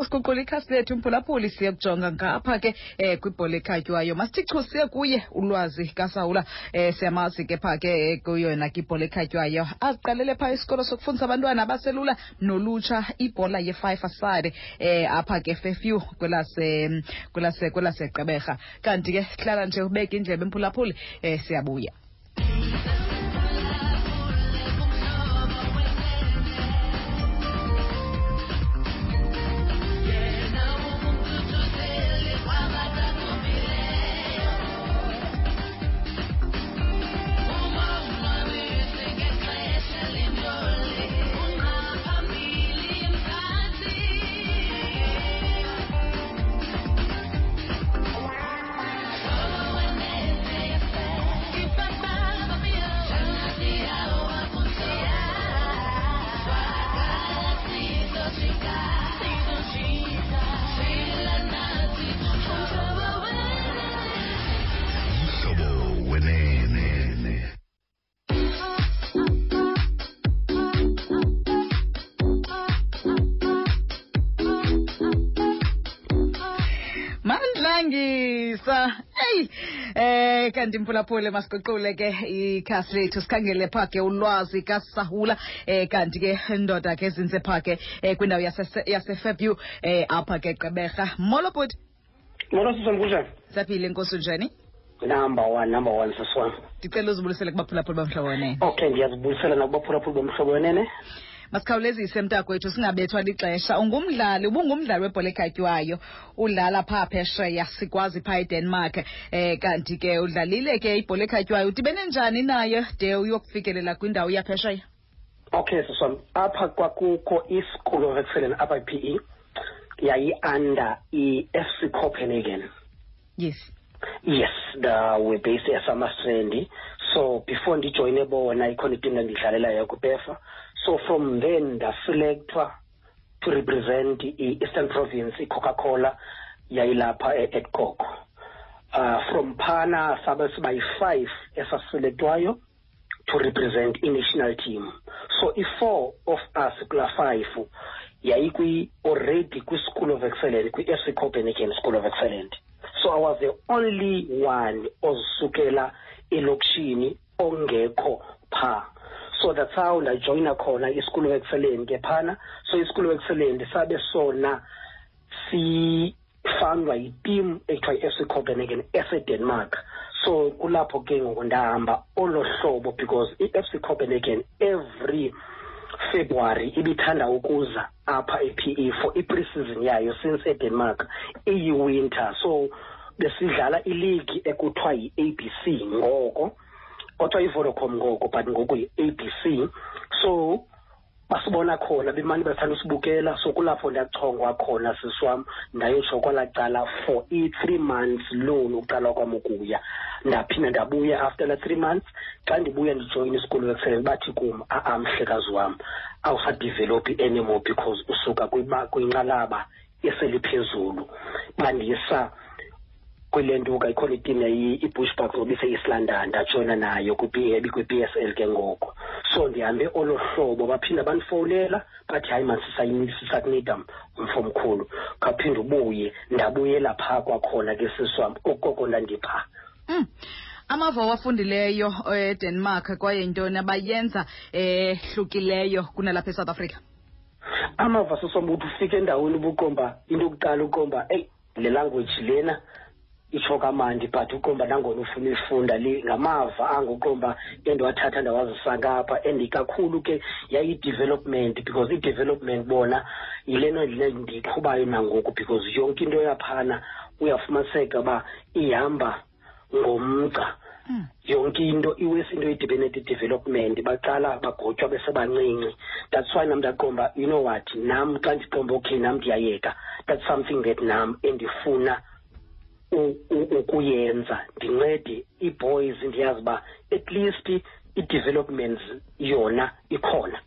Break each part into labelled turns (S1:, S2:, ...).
S1: Siguqula ikhasi lethu, mphulaphuli, siye kujonga ngapha ke kwibhola ekhatywayo. Masithi chu siye kuye uLwazi kaSawula. Siyamazi ke pha ke kuyona ke ibhola ekhatywayo. Aziqalele pha isikolo sokufundisa abantwana abaselula nolutsha ibhola ye-five aside apha ke Fairview kwelaseGqeberha. Kanti ke hlala nje ubeke indlebe, mphulaphuli, siyabuya.
S2: Umhlobo Wenene.
S1: Mandlangisa, eyi, kanti mphulaphule, masiguqule ke ikhasi lethu, sikhangele pha ke uLwazi kaSahula. Kanti ke ndoda ke zinze pha ke kwindawo yaseFairview apha ke Gqeberha. Molo bhuti.
S3: Molo sisi, kunjani?
S1: Saphile, nkosi, unjani?
S3: Number one, number one, sisi wam.
S1: Ndicela uzibulisele kubaphulaphuli boMhlobo Wenene.
S3: Okay, ndiyazibulisela nakubaphulaphuli boMhlobo Wenene.
S1: Masikhawulezise mntakwethu, singabethwa lixesha. Ungumdlali, ubungumdlali webhola ekhatywayo, udlala phaa phesheya, sikwazi phaa eDenmark. Kanti ke udlalile ke ibhola ekhatywayo, udibene njani nayo de uyokufikelela kwindawo yaphesheya?
S3: Okay sisi wam, apha kwakukho i-School of Excellence apha i-PE, yayi-under i-FC Copenhagen. Yes, the we're based eSummerstrand. So before ndijoyine bona, ikhona iteam endidlalelayo kuPEFA. So from then ndaselectwa to represent i-Eastern Province, i-Coca-Cola yayilapha e-Edcock. From phana sabe siba yi-5 esaselektwayo to represent i-national team. So i-4 of us kula 5 yayikwi already kwi-School of Excellence, kwi-FC Copenhagen School of Excellence. So I was the only one ozisukela elokishini ongekho pha. So that's how ndajoyina khona i-School of Excellence ke phana. So i-School of Excellence sabe sona sifandwa yiteam ekuthiwa yi-FC Copenhagen eseDenmark. So kulapho ke ngoku ndahamba olo hlobo, because i-FC Copenhagen every February ibithanda ukuza apha e-PE for i-pre-season yayo, since eDenmark iyi-winter. So besidlala ileague ekuthiwa yi-ABC ngoko, kodwa i-Vodacom ngoko, but ngoku yi-ABC. So basibona khona, bemane bathanda usibukela. So kulapho ndachongwa khona sisi wam, ndayotsho kwalaa cala for i-3 months loan uqala kwam ukuya. Ndaphinda ndabuya after la 3 months. Xa ndibuya ndijoyina isikolo excellence, bathi kum, a-a mhlekazi wam, awusadevelophi anymore because usuka kwinqalaba eseliphezulu. Bandisa kwile ntuka, ikhona iteam i-Bushbucks ngoba ise-East London, ndajoyina nayo kwi-PSL ke ngoko. So ndihambe olo hlobo, baphinda bandifowunela bathi hayi man, sisakunida mfo mkhulu, khawuphinde ubuye. Ndabuyela phaa kwakhona ke sisi wam, okoko ndandiphaa.
S1: Amava owafundileyo eDenmark, kwaye yintoni abayenza ehlukileyo kunalapha eSouth Africa?
S3: Amava sisi wam, uthi ufike endaweni ubuqomba into yokuqala, uqomba eyi le language lena itsho kamandi, but uqomba nangona ufuna uyifunda le ngamava anguqomba endiwathatha ndawazisa ngapha. And kakhulu ke yayi-development, because i-development bona yilena ndiyiqhubayo nangoku, because yonke into yaphana uyafumaniseka uba ihamba ngomgca. Yonke into iwesi into idibene ne-development, baqala bagotywa besebancinci. That's why nam ndaqomba, you know what, nam xa ndiqomba okay nam ndiyayeka, that's something that nam endifuna ukuyenza, ndincede ii-boys, ndiyazi uba at least i-developments yona ikhona.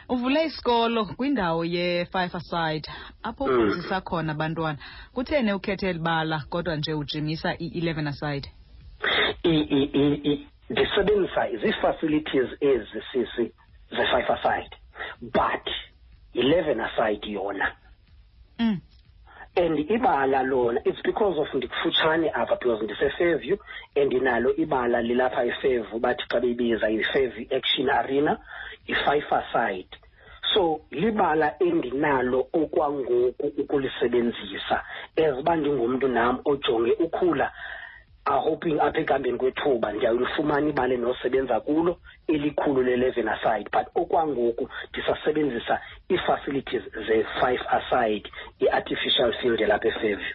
S1: Uvule isikolo kwindawo ye-five aside apho ufundisa khona abantwana. Kutheni ukhethe eli bala kodwa nje ujimisa i-11 aside?
S3: Ndisebenzisa zii-facilities ezi sisi ze-five aside, but 11 aside yona And ibala lona, it's because of ndikufutshane apha, because ndise-Fairview and nalo ibala lilapha eFairview, bathi xa beyibiza yi-Fairview Action Arena, yi-five-a-side. So libala endinalo okwangoku ukulisebenzisa, as uba ndingumntu nam ojonge ukhula, hoping apha ekuhambeni kwethuba ndiyawulifumana ibala endinosebenza kulo elikhulu le-11 aside, but okwangoku ndisasebenzisa ii-facilities ze-5 aside, i-artificial field elapha eFairview.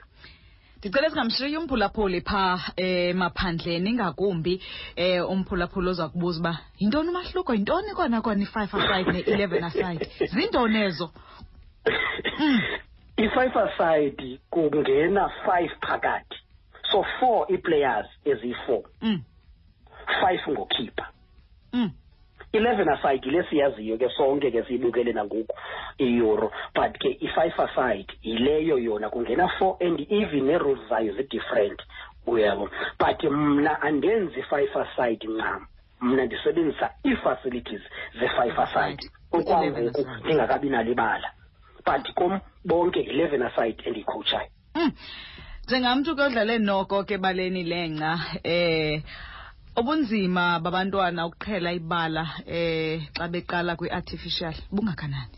S1: Ndicela singamshiyi umphulaphuli phaa emaphandleni, ingakumbi umphulaphuli oza kubuza uba yintoni umahluko, yintoni kona kona i-five aside ne-11 aside, zintoni ezo?
S3: I-five aside kungena five phakathi, so four ii-players eziyi-four, five ngokhipha. 11 aside yile siyaziyo ke sonke ke, siyibukele nangoku i-Euro, but ke i-five aside yileyo yona kungena four, and even nee-rules zayo zi-different, uyabo. But mna andenzi five aside ncam, mna ndisebenzisa ii-facilities ze-five aside okwangoku ndingakabi nalo ibala, but kum bonke 11 aside endiyikhowutshayo.
S1: Njengamntu ke odlale noko ke baleni lengca, ubunzima babantwana ukuqhela ibala xa beqala kwi-artificial bungakanani?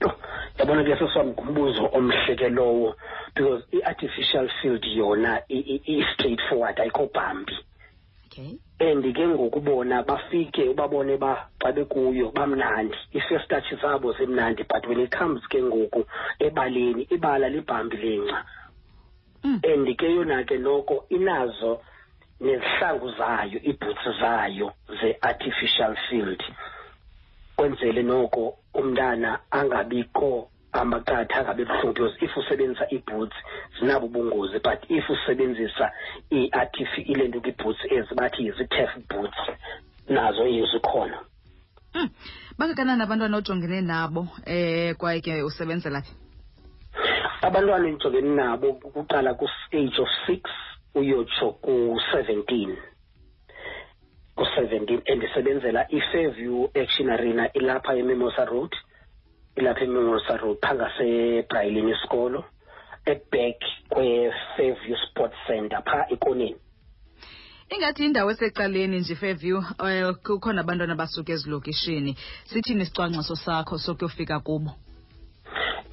S3: Yho, yabona ke seswam, ngumbuzo omhle ke lowo, because i-artificial field yona i-straight forward, ayikho bumpy. And ke ngoku bona bafike ubabone ba xa bekuyo bamnandi, i-first touch zabo zimnandi, but when it comes ke ngoku ebaleni, ibala li-bumpy lengca. And ke yona ke noko inazo nezihlangu zayo, ii-boots zayo ze-artificial field, kwenzele noko umntana angabikho amaqatha, angabi buhlungu, because if usebenzisa ii-boots zinabo ubungozi, but if usebenzisa ile nto kwi-boots ezi bathi zii-turf boots, nazo zikhona.
S1: Bangakanani abantwana ojongene nabo, kwaye ke usebenzela phi?
S3: Abantwana endijongene nabo kuqala ku-age of 6 uyotsho ku-17, ku-17, endisebenzela i-Fairview Action Arena, ilapha eMimosa Road, ilapha eMimosa Road phaa ngaseBraelyn isikolo, e-back kwe-Fairview Sports Center phaa ekoneni.
S1: Ingathi indawo esecaleni nje Fairview, kukhona abantwana abasuka ezilokishini. Sithini isicwangciso sakho sokuyofika kubo?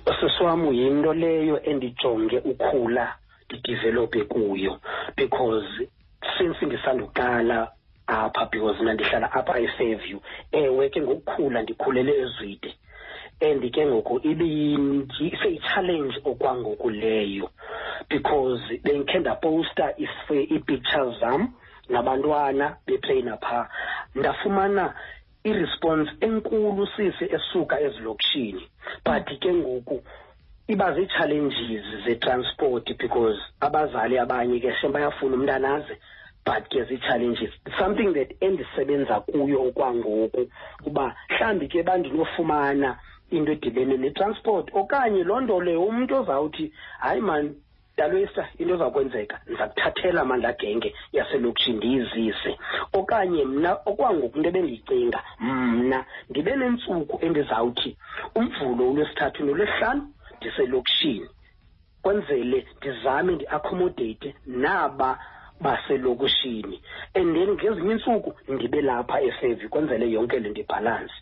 S3: Sisi wam, yinto leyo endijonge ukhula ndi-develope kuyo, because since ndisanduqala apha, because mna ndihlala apha eFairview, ewe ke ngokukhula ndikhulele eZwide, and ke ngoku iseyi-challenge okwangoku leyo, because bendikhe ndaposta ii-pictures zam nabantwana bepleyina phaa, ndafumana i-response enkulu sisi esuka ezilokishini, but ke ngoku iba zii-challenges ze-transport, because abazali abanye ke shem bayafuna umntana aze, but ke zii-challenges, something that endisebenza kuyo okwangoku, uba mhlawumbi ke bandinofumana into edibene ne-transport okanye loo nto leyo umntu ozawuthi hayi maan Dalwisa, into ezakwenzeka ndiza kuthathela mani genge yaselokishini ndiyizise, okanye mna okwangoku into ebendiyicinga mna ndibe nentsuku endizawuthi uMvulo, uLwesithathu noLwesihlanu ndiselokishini, kwenzele ndizame ndi-accommodate naba baselokishini, and then ngezinye iintsuku ndibe lapha eFairview, kwenzele yonke le nto i-balance.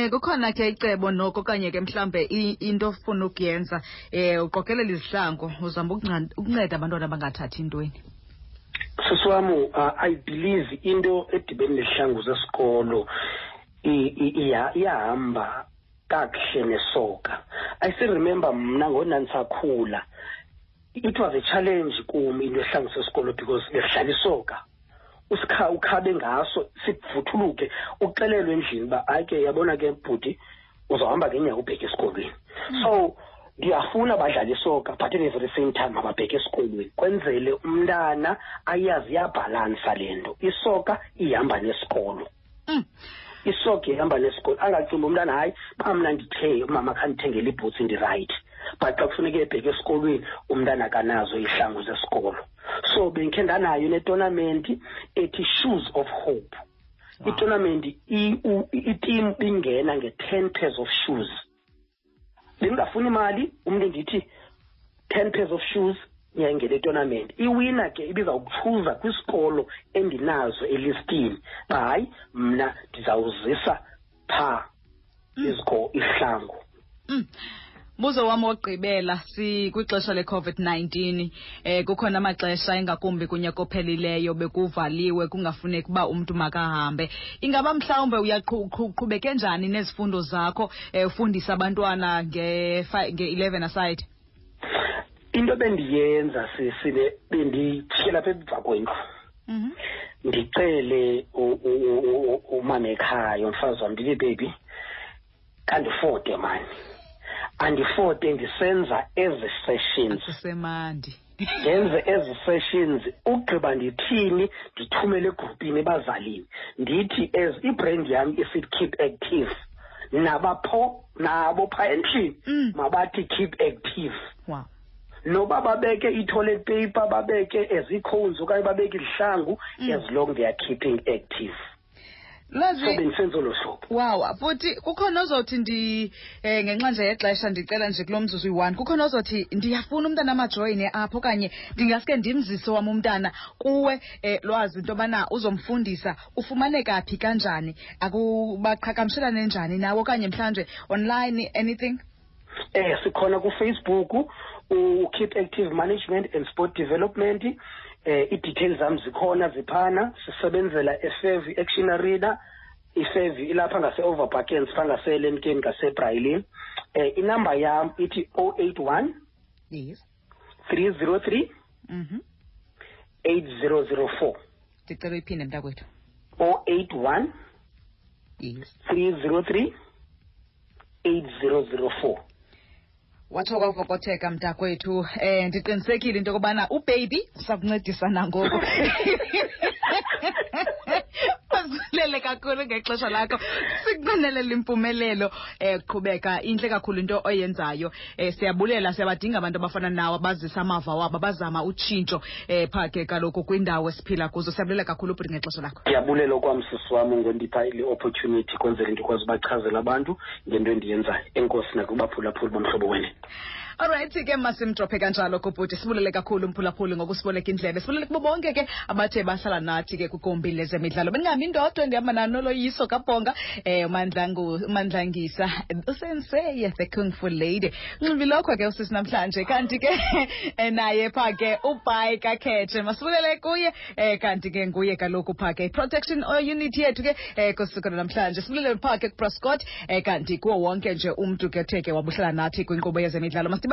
S1: Kukhona ke icebo noko okanye ke mhlambe into ofuna ukuyenza, uqokelela izihlangu uzama ukunceda abantwana abangathathi intweni?
S3: Sisi wam, I believe into edibene nezihlangu zesikolo iyahamba kakuhle nesoka. I still remember mna ngonandisakhula, it was a challenge kum into esihlangu sesikolo, because besidlala isoka, usikha ukhabe ngaso sivuthuluke, uxelelwe endlini uba hayi ke, yabona ke bhuti, uzawuhamba ngeenyawo ubheke esikolweni. So ndiyafuna badlale isoka, but at the very same time mababheke esikolweni, kwenzele umntana ayazi iyabhalansa le nto, isoka ihamba nesikolo. Isoka ihamba nesikolo, angacingi umntana hayi uba mna ndithe umama khandithengele ii-boots ndi-right, but xa kufuneka ebheke esikolweni umntana akanazo izihlangu zesikolo. So bendikhe ndanayo ne-tournament ethi Shoes of Hope. I-tournament, i-team bingena nge-10 pairs of shoes. Bendingafuni imali, umntu ndithi 10 pairs of shoes niyayingena itournament. Iwina ke ibizawuchuza kwisikolo endinazo elistini uba hayi, mna ndizawuzisa phaa izihlangu.
S1: Mbuzo wam wokugqibela, sikwixesha le-COVID-19, kukhona amaxesha ingakumbi kunyaka ophelileyo bekuvaliwe, kungafuneki uba umntu makahambe. Ingaba mhlawumbe uyaqhubeke njani nezifundo zakho, ufundisa abantwana nge-11 aside?
S3: Into bendiyenza sisile, bendijikela apha emva kwendlu. Ndicele umama ekhaya, umfazi wam, ndithi baby, kandifote mani, andifote ndisenza ezi sessions.
S1: Akusemandi.
S3: Ndenze ezi sessions, ugqiba ndithini, ndithumele egrupini ebazalini, ndithi as ibrand yam isithi keep active, nabo phaa endlini mabathi keep active. Noba babeke i-toilet paper, babeke ezi-cones okanye babeke izihlangu, as long they are keeping active.
S1: Lwazi,
S3: So bendisenza olo hlobo.
S1: Wow, futhi kukhona ozothi ndi ngenxa nje yexesha ndicela nje kulo mzuzu uyi-1, kukhona ozothi ndiyafuna umntana amajoyine apho okanye ndingaske ndimzise wam umntana kuwe, Lwazi, into yobana uzomfundisa, ufumaneka phi, kanjani, akubaqhagamshelane njani nawe okanye mhlawumbe online, anything?
S3: Sikhona kuFacebook, u-Keep Active Management and Sport Development. I-details zam zikhona ziphana. Sisebenzela eFairview Action Arena. iFairview ilapha ngase-Overbackens, phaa ngaseLemkeni, ngaseBrailin. Inamba yam ithi 081 303 8004.
S1: Ndicela uyiphinde, mntakwethu.
S3: 081 303 8004.
S1: Watsho kwavokotheka, mntakwethu. Ndiqinisekile into yokubana ubaby usakuncedisa nangoku. Masibulele kakhulu ngexesha lakho, sikunqwenelela impumelelo. Qhubeka, intle kakhulu into oyenzayo. Siyabulela, siyabadinga abantu abafana nawe abazisa amava wabo, abazama utshintsho phaa ke kaloku kwindawo esiphila kuzo. Siyabulela kakhulu bhuti ngexesha lakho.
S3: Ndiyabulela okwam, sisi wam, ngondipha le opportunity kwenzela ndikwazi ubachazela abantu ngento endiyenzayo. Enkosi nakubaphulaphuli boMhlobo Wenene.
S1: Alright ke, masimdrophe kanjalo kubhuti. Sibulele kakhulu umphulaphuli ngokusiboleka indlebe. Sibulele kubo bonke ke abathe bahlala nathi ke kwigumbi lezemidlalo. Bendingahambi ndodwa, ndihamba naNoloyiso Kabhonga, uMandlangisa, usenseye the Kung Fu Lady. Nxibilokho ke usisi namhlanje, kanti ke naye pha ke uBhayi kaKhetshe. Masibulele kuye, kanti ke nguye kaloku pha ke protection unit yethu ke kusuku namhlanje. Sibulele pha ke kuProscott, kanti kuwo wonke nje umntu ke othe ke wabuhlala nathi kwinkqubo yezemidlalo. Masidibane.